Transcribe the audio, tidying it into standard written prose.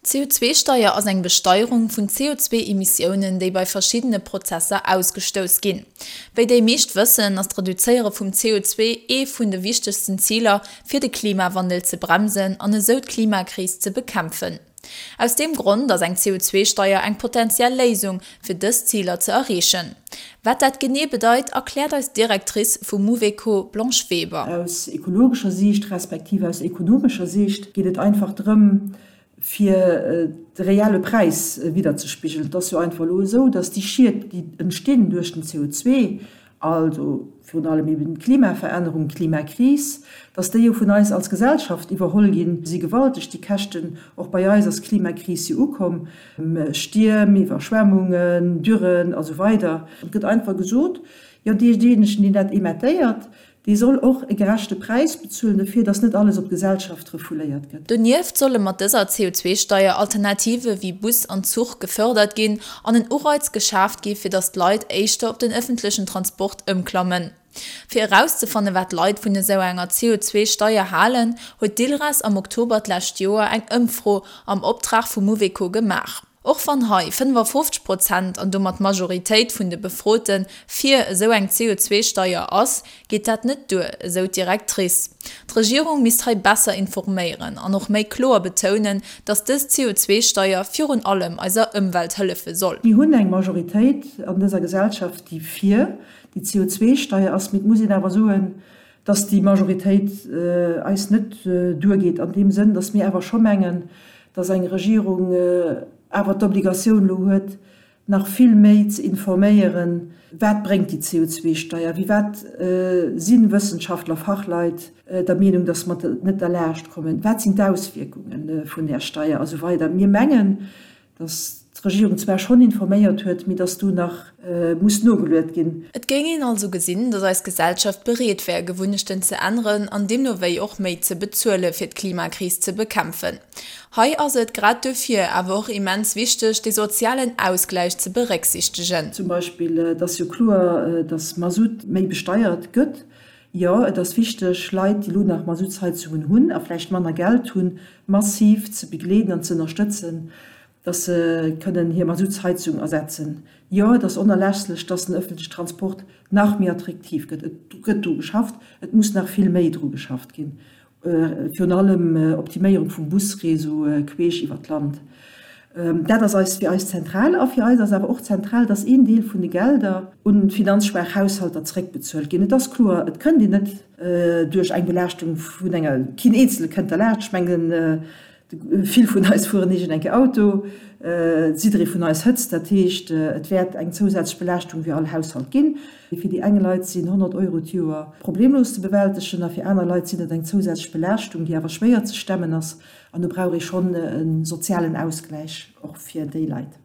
D'CO2-Steier ass eng Besteierung vun CO2-Emissiounen, déi bei verschiddene Prozesser ausgestouss ginn. Wéi déi meescht wëssen, ass d'Reduzéiere vum CO2 ee vun de wichtegsten Ziler, fir de Klimawandel ze bremsen an esou d'Klimakris ze bekämpfen. Aus deem Grond ass eng CO2-Steier eng potentiell Léisung, fir dës Ziler ze erreechen. Wat dat genee bedeit, erkläert eis d'Directrice vu Mouveco, Blanche Weber. Aus ekologescher Siicht respektiv aus ekonomescher Siicht geet et einfach drëm, fir de reelle Präis widderzespigelen. Et ass jo einfach elo esou, dass déi Schied, déi entstinn duerch den CO2, also virun allem eben d'Klimaverännerung, d'Klimakris, dass déi jo vun eis als Gesellschaft iwwerholl ginn, si gewalteg, déi Käschten. Och bei eis ass d'Klimakris jo ukomm, Stierm, Iwwerschwemmungen, Dürren a sou weider. Et gëtt einfach gesot, jo deejéinegen, deen dat emettéiert, Dee soll och e gerechte Präis bezuelen dofir, datt net alles op d'Gesellschaft refouléiert gëtt. Donieft solle mat dëser CO2-Steier Alternative wéi Bus an Zuch gefërdert ginn an en Ureiz geschaaft gi fir datt d'Leit éischter op den ëffentlechen Transport ëmklammen. Fir erauszefanne wat d'Leit vun esou enger CO2-Steier halen, huet d'ILRAS am Oktober d'lescht Joer eng Ëmfro am Optrag vu Mouveco gemaach. Och wann hei 55 Prozent, an domat d'Majoritéit vun de Befrote fir esou eng CO2-Steier ass, geet dat net duer, esou d'Directrice. D'Regierung misst hei besser informéieren an och méi kloer betounen, datt dës CO2-Steier virun allem eiser Ëmwelt hëllefe soll. Mir hunn eng Majoritéit an dëser Gesellschaft, déi fir déi CO2-Steier ass, mee et muss een awer soen, datt déi Majoritéit eis net duergeet an deem Sënn, datt mir awer scho mengen, dass eng Regierung awer d'Obligatioun elo huet, nach vill méi ze informéieren, wat bréngt déi CO2-Steier, wéi wat si Wëssenschaftler, Fachleit der Meenung, dass mer net derlaascht kommen, wat sinn d'Auswierkunge vun där Steier a sou weider. Mir mengen, dass d'Regierung zwar schonn informéiert huet, mee dass do nach muss nogeluet ginn. Et géing een also gesinn, dass eis Gesellschaft bereet wär, Gewunnechten ze änneren an deemno wéi och méi ze bezuele fir d'Klimakris ze bekämpfen. Hei ass et grad duerfir awer och immens wichteg, dee sozialen Ausgläich ze berécksichtegen. Zum Beispill, et ass jo kloer, dass Masutt méi besteiert gëtt. Jo, et ass wichteg, Leit, déi elo nach Masuttsheizungen hunn a vläicht manner Geld hunn, massiv ze begleeden an ze ënnerstëtzen, dass se kënnen hir Masuttsheizung ersetzen. Jo, et ass onerlässlech, dass den öffentliche Transport nach méi attraktiv gëtt. Et gëtt dru geschafft, et muss nach vill méi dru geschafft ginn, virun allem Optiméierung vum Busréseau queesch iwwert d'Land. Dat ass eis fir eis zentral. A fir eis ass awer och zentral, dass een Deel vun de Gelder un finanzschwaach Haushalter zréckbezuelt ginn. Et ass kloer, et kënnt een net duerch eng Belaaschtung vun enger, keen Eenzele kënnt derlaanscht. Ech mengen, Vill vun eis fueren iergend eng Kéier Auto, jidderee vun eis hëtzt, dat heescht et wäert eng zousätzlech Belaaschtung fir all Haushalt ginn. Fir déi eng Leit sinn 100 Euro d'Joer problemlos ze bewältegen a fir aner Leit sinn et eng zousätzlech Belaaschtung, déi awer schwéier ze stemmen ass an do brauch ee schonn e sozialen Ausgläich och fir déi Leit.